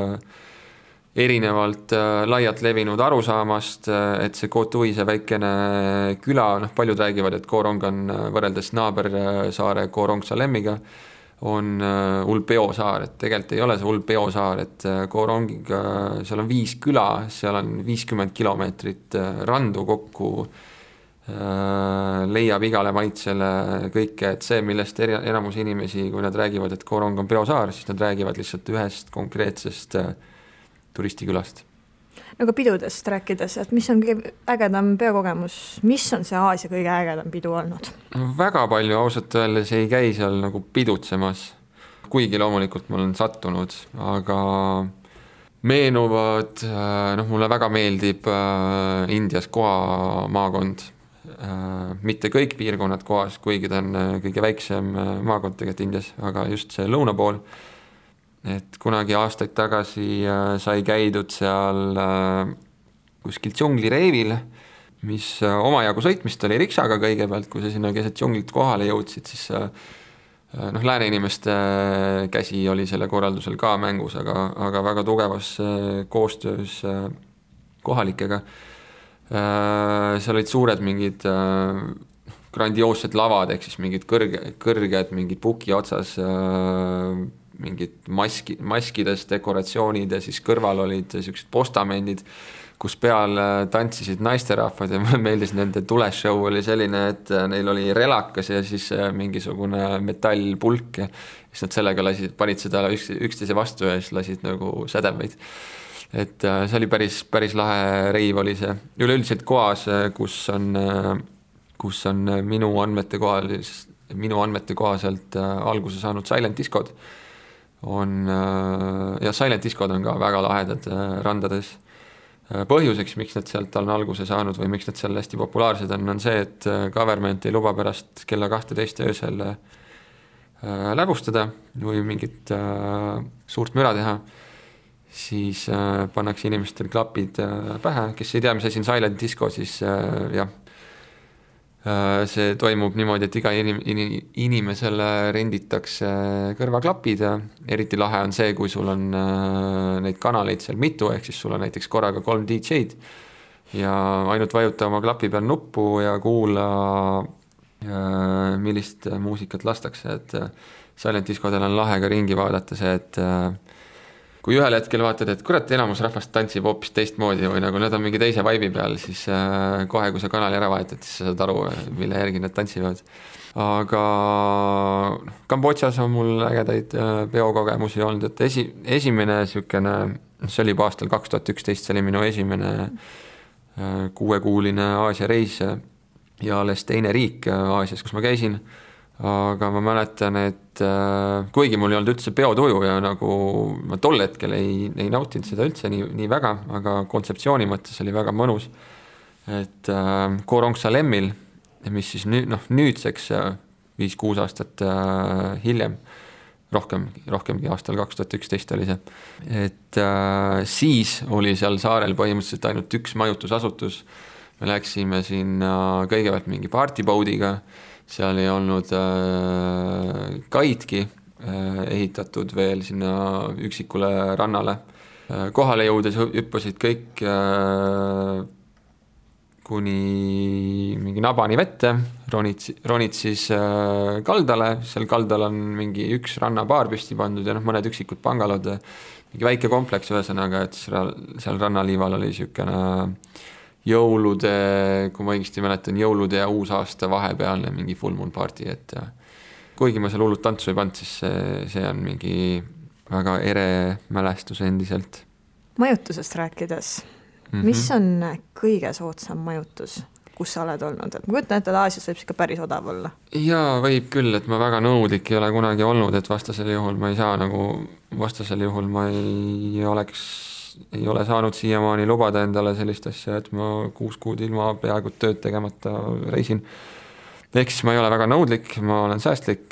erinevalt laialt levinud arusaamast, et see Kotui, see väikene küla, paljud räägivad, et Koh Rong on võrreldes naabersaare Koh Rong Salemiga on Ulpeo saar, et tegelikult ei ole see Ulpeo saar, et Koh Rongiga seal on 5 küla, seal on 50 kilomeetrit randu kokku, leiab igale maitsele kõike, et see, millest enamus inimesi, kui nad räägivad, et Koh Rong on peosaar, siis nad räägivad lihtsalt ühest konkreetsest turistikülast. Nagu pidudest rääkides, et mis on kõige ägedam peokogemus, mis on see Aasia kõige ägedam pidu olnud? Väga palju ausalt öeldes ei käi seal nagu pidutsemas, kuigi loomulikult ma olen sattunud, aga meenuvad, mulle väga meeldib Indias Goa maakond. Mitte kõik piirkonnad Goas, kuigi ta on kõige väiksem maakond tegelikult Indias, aga just see lõuna pool. Et kunagi aastaid tagasi sai käidud seal kuskil džunglireivil, mis omajagu sõitmist oli riksaga kõigepealt, kui sa sinna keset džunglit kohale jõudsid, siis lääne inimeste käsi oli selle korraldusel ka mängus, aga väga tugevas koostöös kohalikega. Seal olid suured mingid grandioossed lavad, ehk siis mingid kõrged mingid puki otsas mingid maskides dekoratsioonid ja siis kõrval olid sellised postamendid, kus peal tantsisid naisterahvad ja mulle meeldis nende tuleshow oli selline, et neil oli relakas ja siis mingisugune metallpulk ja siis nad sellega panid seda üksteise vastu ja siis lasid nagu sädemeid. Et see oli päris lahe reiv oli see. Üleüldiselt Goas, kus on minu andmete kohaselt alguse saanud Silent Discod, ja Silent Discod on ka väga lahedad randades. Põhjuseks, miks nad sealt on alguse saanud või miks nad seal hästi populaarsed on see, et government ei luba pärast kella 12 öösel läbustada või mingit suurt müra teha, siis pannakse inimestel klapid pähe, kes ei tea, mis asi on Silent Disco, siis jah, see toimub niimoodi, et iga inimesele renditakse kõrvaklapid ja eriti lahe on see, kui sul on neid kanaleid seal mitu, ehk siis sul on näiteks korraga 3 DJ-d ja ainult vajuta oma klapi peal nuppu ja kuula, millist muusikat lastakse, et Silent Discodel on lahe ka ringi vaadata see, et kui ühel hetkel vaatad, et kurat, enamus rahvast tantsib hoopis teistmoodi või nagu nad on mingi teise vibe'i peal, siis kohe, kui sa kanali ära vahetad, siis sa saad aru, mille järgi nad tantsivad. Aga Kambodžas on mul ägedaid peokogemusi olnud, et esimene sükene, see oli juba aastal 2011, see oli minu esimene 6-kuuline Aasia reis ja alles teine riik Aasias, kus ma käisin. Aga ma mäletan, et kuigi mul ei olnud üldse peotuju ja nagu ma tol hetkel ei nautinud seda üldse nii väga, aga kontseptsiooni mõttes oli väga mõnus, et Khorong Salemmil, mis siis nüüdseks 5-6 aastat hiljem, rohkemgi aastal 2011 oli see, et siis oli seal saarel põhimõtteliselt ainult üks majutusasutus, me läksime sinna kõigepealt mingi partyboatiga, seal ei olnud kaidki ehitatud veel sinna üksikule rannale. Kohale jõudes hüppasid kõik kuni mingi nabani vette, ronid siis kaldale, seal kaldal on mingi üks rannabaar püsti pandud ja mõned üksikud pangalod, mingi väike kompleks ühesõnaga, et seal rannaliival oli niisugune jõulude, kui ma õigesti mäletan, jõulude ja uusaasta vahepealne mingi full moon party, et kuigi ma seal hullult tantsu ei pannud, siis see on mingi väga ere mälestus endiselt. Majutusest rääkides, mis on kõige soodsam majutus, kus sa oled olnud? Et ma kujutan, et Aasias võib ikka päris odav olla. Jaa, võib küll, et ma väga nõudlik ei ole kunagi olnud, et vastasel juhul ma ei saa ma ei ole saanud siiamaani lubada endale sellist asja, et ma 6 kuud ilma peaaegu tööd tegemata reisin. Ehk siis ma ei ole väga nõudlik, ma olen säästlik.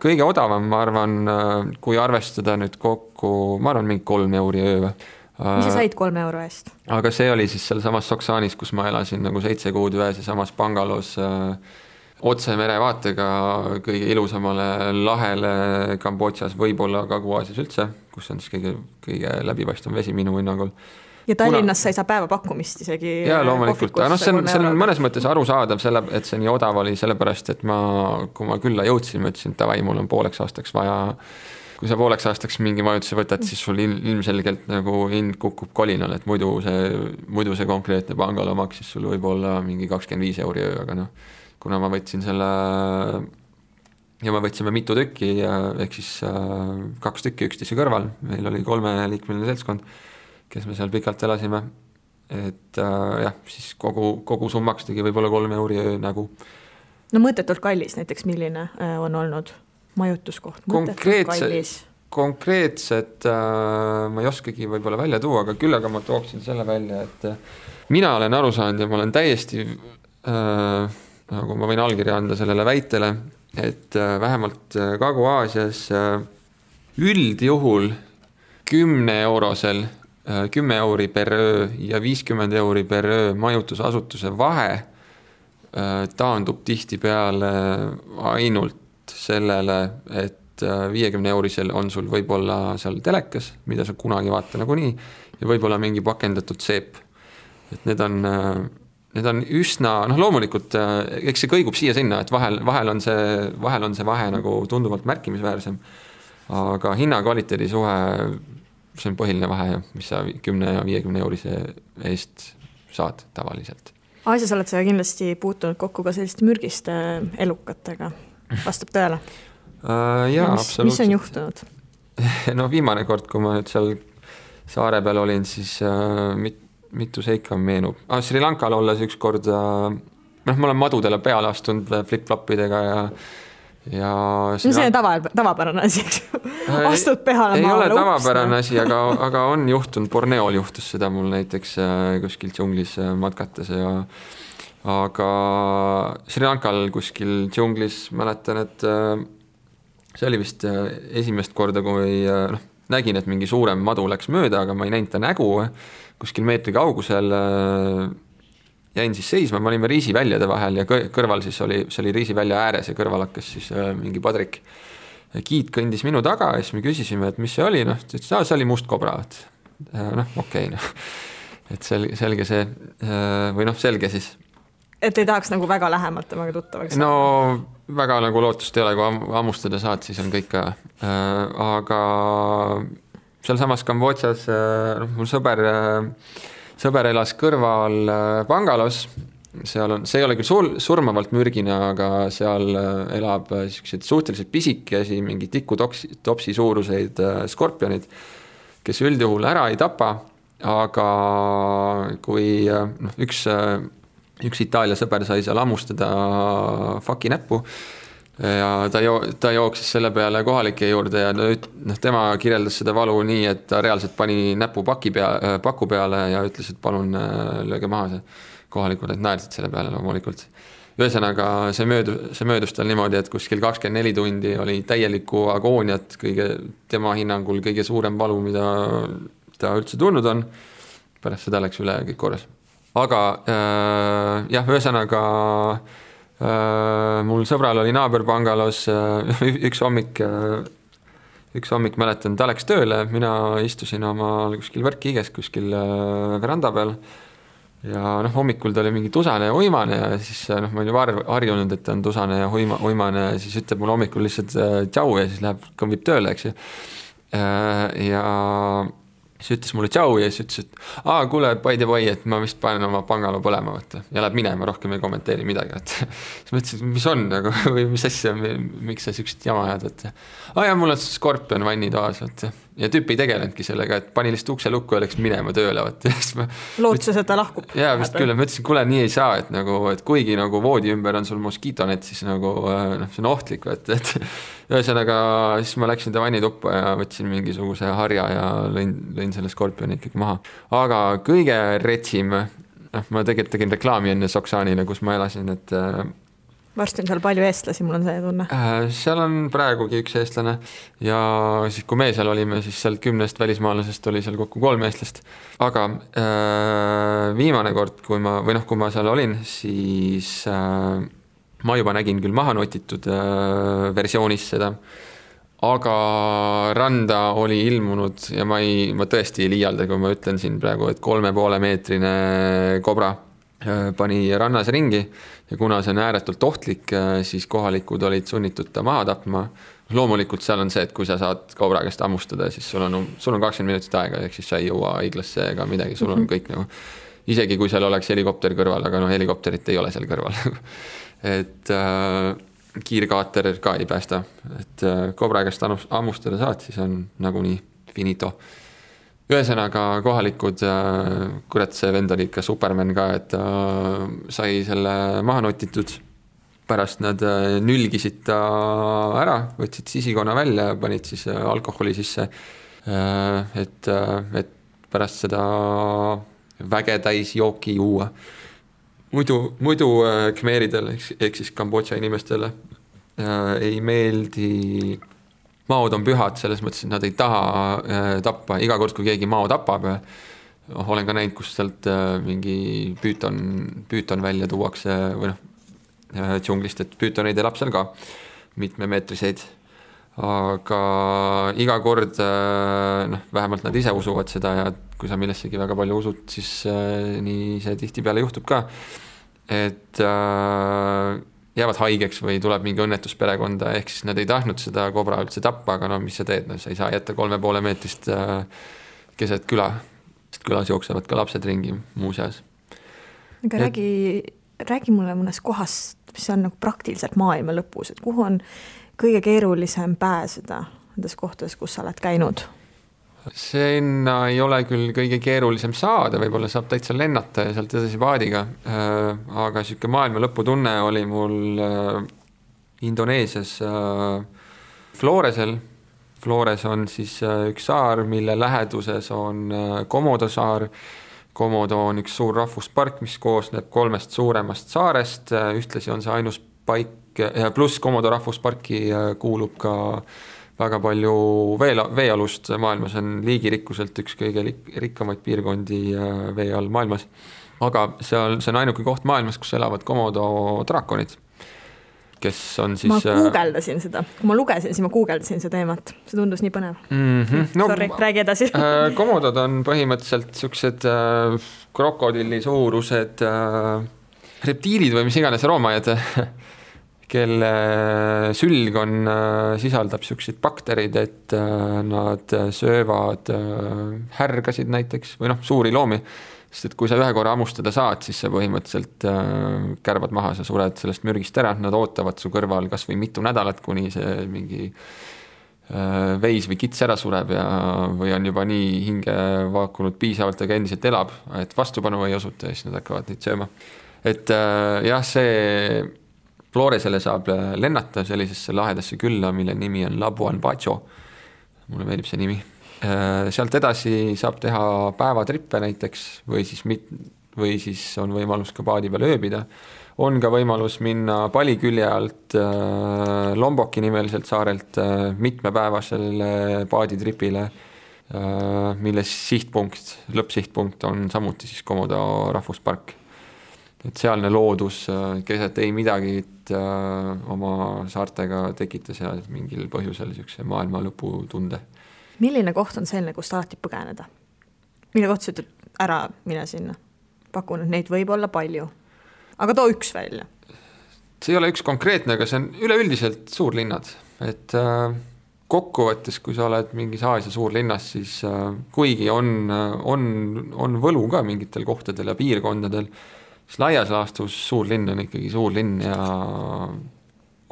Kõige odavam, ma arvan, kui arvestada nüüd kokku, ma arvan mingi 3 euri öö. Mis sa said 3 euro eest? Aga see oli siis seal samas Soksaanis, kus ma elasin nagu 7 kuud ühes ja samas Bangalos otse merevaatega kõige ilusamale lahele Kambodžas, võib-olla Kagu-Aasias üldse, kus on siis kõige läbipaistvam vesi minu hinnangul. Ja Tallinnas sa ei saa päevapakkumist isegi. Jaa, loomulikult. See on mõnes mõttes arusaadav, et see nii odav oli, sellepärast, et kui ma külla jõudsin, ma ütlesin, et davai, mul on pooleks aastaks vaja. Kui sa pooleks aastaks mingi majutuse võtad, siis sul ilmselgelt nagu hind kukub kolinal, et muidu see konkreetne pangalo maksis sul võib-olla mingi 25 euri öö, aga kuna ma võtsin selle ja me võtsime mitu tükki, ehk siis 2 tükki üksteise kõrval, meil oli 3-liikmeline seltskond, kes me seal pikalt elasime, et jah, siis kogu summaks tegi võib-olla 3 euri nagu. No mõõtetult kallis näiteks, milline on olnud majutuskoht? konkreetset ma ei oskagi võib-olla välja tuua, aga küll aga ma tooksin selle välja, et mina olen aru saanud ja ma olen täiesti, nagu ma võin allkirja anda sellele väitele, et vähemalt Kagu-Aasias üldjuhul 10 euri per öö ja 50 euri per öö majutusasutuse vahe taandub tihtipeale ainult sellele, et 50 eurisel on sul võib-olla seal telekas, mida sa kunagi vaata nagunii, ja võib-olla mingi pakendatud seep. Et need on üsna, loomulikult, eks see kõigub siia-sinna, et vahel on see vahe nagu tunduvalt märkimisväärsem, aga hinna-kvaliteedi suhe, see on põhiline vahe, mis sa 10 ja 50 eurise eest saad tavaliselt. Aasias oled sa kindlasti puutunud kokku ka selliste mürgiste elukatega, vastab tõele? Jaa, absoluutselt. Mis on juhtunud? No viimane kord, kui ma nüüd seal saare peal olin, siis mitu seika meenub. Sri Lankal olles üks kord, ma olen madudele peale astunud flip-flopidega ja see on tavapärane asi, eks ju. Astud peale ei ole tavapärane asi, aga on juhtunud, Borneol juhtus seda mul näiteks kuskil džunglis matkates aga Sri Lankal kuskil džunglis mäletan, et see oli vist esimest korda, kui nägin, et mingi suurem madu läks mööda, aga ma ei näinud ta nägu kuskil meetri kaugusel. Jäin siis seisma, me olime riisiväljade vahel ja kõrval siis oli riisivälja ääres ja kõrval hakkas siis mingi padrik. Kiit kõndis minu taga ja siis me küsisime, et mis see oli, see oli must kobra. Okei. Et selge see, või selge siis. Et ei tahaks nagu väga lähemalt temaga tuttavaks? No väga nagu lootust ei ole, kui ammustada saad, siis on kõik ka. Aga seal samas Kambodžas mul sõber elas kõrval Bangalos. See ei ole küll surmavalt mürgine, aga seal elab suhteliselt pisikesi, mingi tikutopsi suuruseid skorpionid, kes üldjuhul ära ei tapa, aga kui üks Itaalia sõber sai seal ammustada faki näppu ja ta jooksis selle peale kohalike juurde ja tema kirjeldas seda valu nii, et ta reaalselt pani näpu paku peale ja ütles, et palun lööge maha see. Kohalikud naersid selle peale loomulikult. Ühesõnaga see möödus tal niimoodi, et kuskil 24 tundi oli täielikku agooniat, tema hinnangul kõige suurem valu, mida ta üldse tulnud on. Pärast seda läks üle kõik korras. Aga ühesõnaga mul sõbral oli naaber Bangalos üks hommik mäletan, ta läks tööle, mina istusin oma kuskil võrkkiiges kuskil veranda peal ja hommikul ta oli mingi tusane ja uimane ja siis ma olin harjunud, et ta on tusane ja uimane ja siis ütleb mul hommikul lihtsalt tšau ja siis kõmbib tööle, eks ju. Ja siis ütles mulle tšau ja siis ütles, et kuule, by the way, et ma vist panen oma Bangalo põlema võtta ja läheb minema, rohkem ei kommenteeri midagi. Siis ma ütlesin, mis on nagu, või mis asja, miks sa süksid jama ajad, ja mul on skorpion vannitoas ja tüüp ei tegelenudki sellega, et pani lihtsalt ukse lukku ja läks minema tööle. Lootses, et ta lahkub. Jaa, vist küll, ma ütlesin, kuule, nii ei saa, et kuigi nagu voodi ümber on sul moskiitonet, siis nagu see on ohtlik, et ühesõnaga siis ma läksin ta vannituppa ja võtsin mingisuguse harja ja lõin selle skorpioni ikkagi maha. Aga kõige retsim, ma tegelikult tegin reklaami enne Soksaanile, kus ma elasin, et varsti on seal palju eestlasi, mul on see tunne. Seal on praegugi üks eestlane ja siis kui me seal olime, siis seal 10 välismaalasest oli seal kokku 3 eestlast. Aga viimane kord, kui ma seal olin, siis ma juba nägin küll maha notitud versioonis seda, aga randa oli ilmunud ja ma tõesti ei liialda, kui ma ütlen siin praegu, et 3,5 meetrine kobra pani rannas ringi ja kuna see on ääretult ohtlik, siis kohalikud olid sunnitud ta maha tapma. Loomulikult seal on see, et kui sa saad kobra käest ammustada, siis sul on 20 minutit aega, ehk siis sa ei jõua haiglasse ega midagi, sul on kõik nagu, isegi kui seal oleks helikopter kõrval, aga helikopterit ei ole seal kõrval. Et kiirkaater ka ei päästa, et kobra käest ammustada saad, siis on nagunii finito. Ühesõnaga kohalikud, kurat see vend oli ikka Superman ka, et sai selle maha notitud pärast nad nülgisid ta ära, võtsid sisikonna välja ja panid siis alkoholi sisse, et pärast seda vägetäis jooki juua. Muidu khmeeridel ehk siis Kambodža inimestele ei meeldi, maod on pühad, selles mõttes, et nad ei taha tappa, iga kord, kui keegi mao tapab, olen ka näinud, kus sealt mingi püüton välja tuuakse või džunglist, et püütoneid elab seal ka mitmemeetriseid, aga iga kord vähemalt nad ise usuvad seda ja kui sa millessegi väga palju usud, siis nii see tihtipeale juhtub ka, et jäävad haigeks või tuleb mingi õnnetus perekonda, ehk siis nad ei tahtnud seda kobra üldse tappa, aga mis sa teed, sa ei saa jätta 3,5 meetrist keset küla, sest külas jooksevad ka lapsed ringi muuseas. Aga räägi mulle mõnes kohast, mis on nagu praktiliselt maailma lõpus, et kuhu on kõige keerulisem pääseda nendes kohtades, kus sa oled käinud? Sinna ei ole küll kõige keerulisem saada, võib-olla saab täitsa lennata ja sealt edasi paadiga, aga siuke maailma lõpu tunne oli mul Indoneesias Floresel. Flores on siis üks saar, mille läheduses on Komodo saar. Komodo on üks suur rahvuspark, mis koosneb 3 suuremast saarest, ühtlasi on see ainus paik, pluss Komodo rahvusparki kuulub ka väga palju veealust maailmas, on liigirikkuselt üks kõige rikkamaid piirkondi vee all maailmas. Aga see on ainuke koht maailmas, kus elavad Komodo draakonid, kes on siis... Ma guugeldasin seda, kui ma lugesin, siis ma guugeldasin seda teemat, see tundus nii põnev. Sorry, räägi edasi. Komodod on põhimõtteliselt siuksed krokodilli suurused reptiilid või mis iganes roomajad, kelle sülg sisaldab siukseid bakterid, et nad söövad härgasid näiteks või suuri loomi, sest et kui sa ühe korra hammustada saad, siis sa põhimõtteliselt kärbad maha, sa sured sellest mürgist ära, nad ootavad su kõrval kas või mitu nädalat, kuni see mingi veis või kits ära sureb või on juba nii hinge vaakunud piisavalt, aga endiselt elab, et vastupanu ei osuta ja siis nad hakkavad neid sööma. Et jah, see Floresele saab lennata sellisesse lahedasse külla, mille nimi on Labuan Bajo. Mulle meeldib see nimi. Sealt edasi saab teha päevatrippe näiteks või siis on võimalus ka paadi peal ööbida. On ka võimalus minna Palikülje alt Lomboki nimeliselt saarelt mitmepäevasele paaditripile, mille lõppsihtpunkt on samuti siis Komodo rahvuspark. Et sealne loodus keset ei midagi oma saartega tekitas ja mingil põhjusel siukse maailma lõpu tunde. Milline koht on selline, kust alati põgeneda? Mille koht sa ütled ära mine sinna? Pakun, et neid võib olla palju. Aga too üks välja. See ei ole üks konkreetne, aga see on üleüldiselt suurlinnad. Et kokkuvõttes, kui sa oled mingis Aasia suurlinnas, siis kuigi on võlu ka mingitel kohtadel ja piirkondadel, siis laias laastus suurlinn on ikkagi suurlinn ja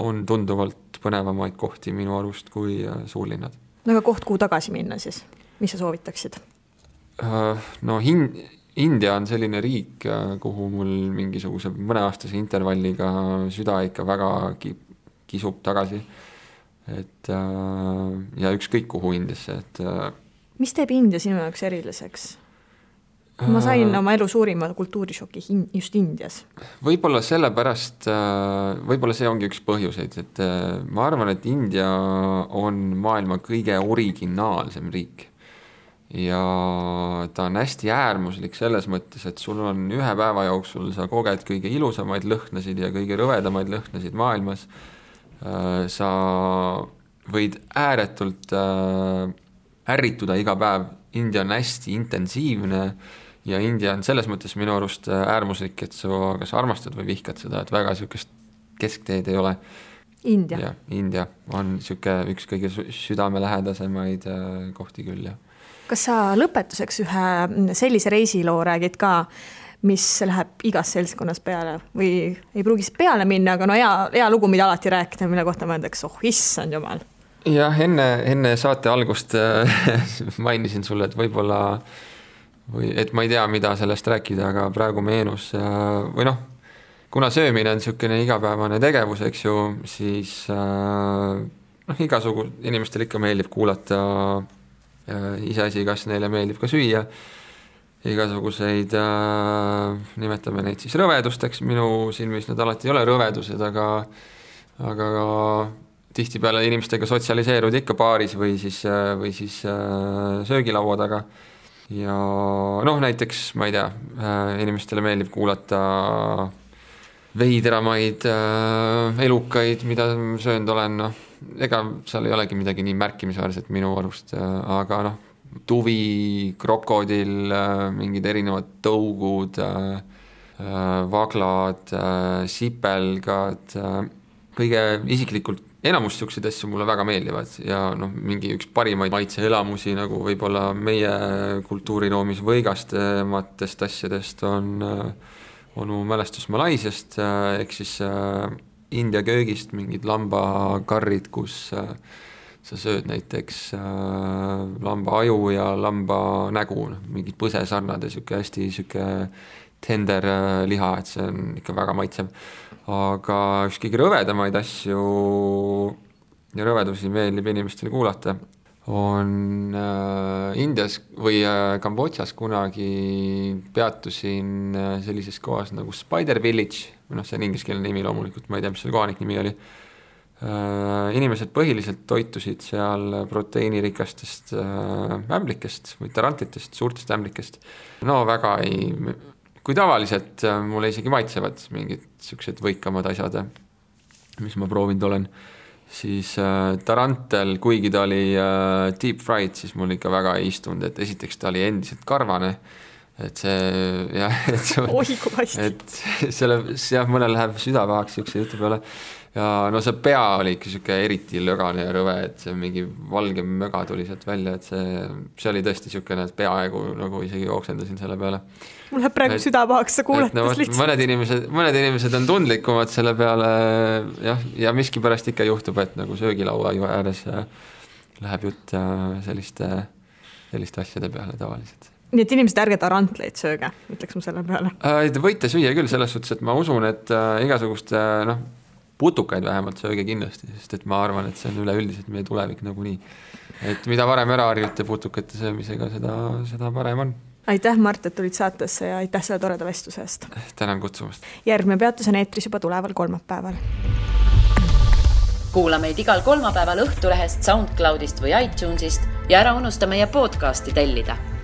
on tunduvalt põnevamaid kohti minu arust kui suurlinnad. No aga koht, kuhu tagasi minna siis? Mis sa soovitaksid? No India on selline riik, kuhu mul mingisuguse mõneaastase intervalliga süda ikka väga kisub tagasi. Et, ja ükskõik kuhu Indiasse. Et, mis teeb India sinu jaoks eriliseks? Ma sain oma elu suurima kultuurishoki just Indias. Võib-olla sellepärast, võib-olla see ongi üks põhjuseid, et ma arvan, et India on maailma kõige originaalsem riik. Ja ta on hästi äärmuslik selles mõttes, et sul on ühe päeva jooksul, sa koged kõige ilusamaid lõhnasid ja kõige rõvedamaid lõhnasid maailmas. Sa võid ääretult ärrituda iga päev. India on hästi intensiivne ja India on selles mõttes minu arust äärmuslik, et sa kas armastad või vihkad seda, et väga siukest keskteed ei ole. India. Ja, India on siuke üks kõige südamelähedasemaid kohti küll. Ja. Kas sa lõpetuseks ühe sellise reisiloo räägid ka, mis läheb igas seltskonnas peale või ei pruugis peale minna, aga no hea lugu, mida alati rääkida, mille kohta mõeldaks, issand jumal. Jah, enne saate algust mainisin sulle, et võib-olla et ma ei tea, mida sellest rääkida, aga praegu meenus või kuna söömine on niisugune igapäevane tegevus, eks ju, siis igasugu inimestel ikka meeldib kuulata iseasi, kas neile meeldib ka süüa, igasuguseid, nimetame neid siis rõvedusteks, minu silmis need alati ei ole rõvedused, aga tihtipeale inimestega sotsialiseerud ikka baaris või siis söögilaua taga. Ja näiteks, ma ei tea, inimestele meeldib kuulata veidramaid elukaid, mida söönud olen, ega seal ei olegi midagi nii märkimisväärset minu arust, aga tuvi, krokodil, mingid erinevad tõugud, vaglad, sipelgad, kõige isiklikult enamus niisuguseid asju mulle väga meeldivad ja mingi üks parimaid maitseelamusi nagu võib-olla meie kultuuriroomis võigastematest asjadest on mu mälestus Malaisiast, ehk siis India köögist mingid lambakarrid, kus sa sööd näiteks lamba aju ja lamba nägu, mingid põsesarnad ja hästi tender liha, et see on ikka väga maitsev. Aga üks kõige rõvedamaid asju ja rõvedusi meeldib inimestele kuulata on Indias või Kambodžas kunagi peatusin sellises kohas nagu Spider Village, see on ingliskeelne nimi loomulikult, ma ei tea, mis selle kohanik nimi oli. Inimesed põhiliselt toitusid seal proteiinirikastest ämblikest või tarantlitest, suurtest ämblikest. Väga kui tavaliselt mulle isegi maitsevad mingid siuksed võikamad asjad, mis ma proovinud olen, siis tarantel, kuigi ta oli deep fried, siis mul ikka väga ei istunud, et esiteks ta oli endiselt karvane, et mõnel läheb südavahaks siukse jutu peale ja see pea oli ikka siuke eriti lögane ja rõve, et see mingi valge möga tuli sealt välja, et see oli tõesti siukene, et peaaegu nagu isegi jooksendasin selle peale. Mul läheb praegu südavahaks, sa kuuletas lihtsalt. Mõned inimesed on tundlikumad selle peale ja miski pärast ikka juhtub, et nagu söögilaua ääres läheb jutt selliste asjade peale tavaliselt. Nii et inimesed ärge tarantleid sööge, ütleks ma selle peale. Te võite süüa küll selles suhtes, et ma usun, et igasuguste putukaid vähemalt sööge kindlasti, sest et ma arvan, et see on üleüldiselt meie tulevik nagunii. Et mida varem ära harjute putukate söömisega, seda parem on. Aitäh, Mart, et tulid saatesse ja aitäh selle toreda vestluse eest. Tänan kutsumast. Järgmine peatus on eetris juba tuleval kolmapäeval. Kuula meid igal kolmapäeval Õhtulehest, SoundCloudist või iTunesist ja ära unusta meie podcasti tellida.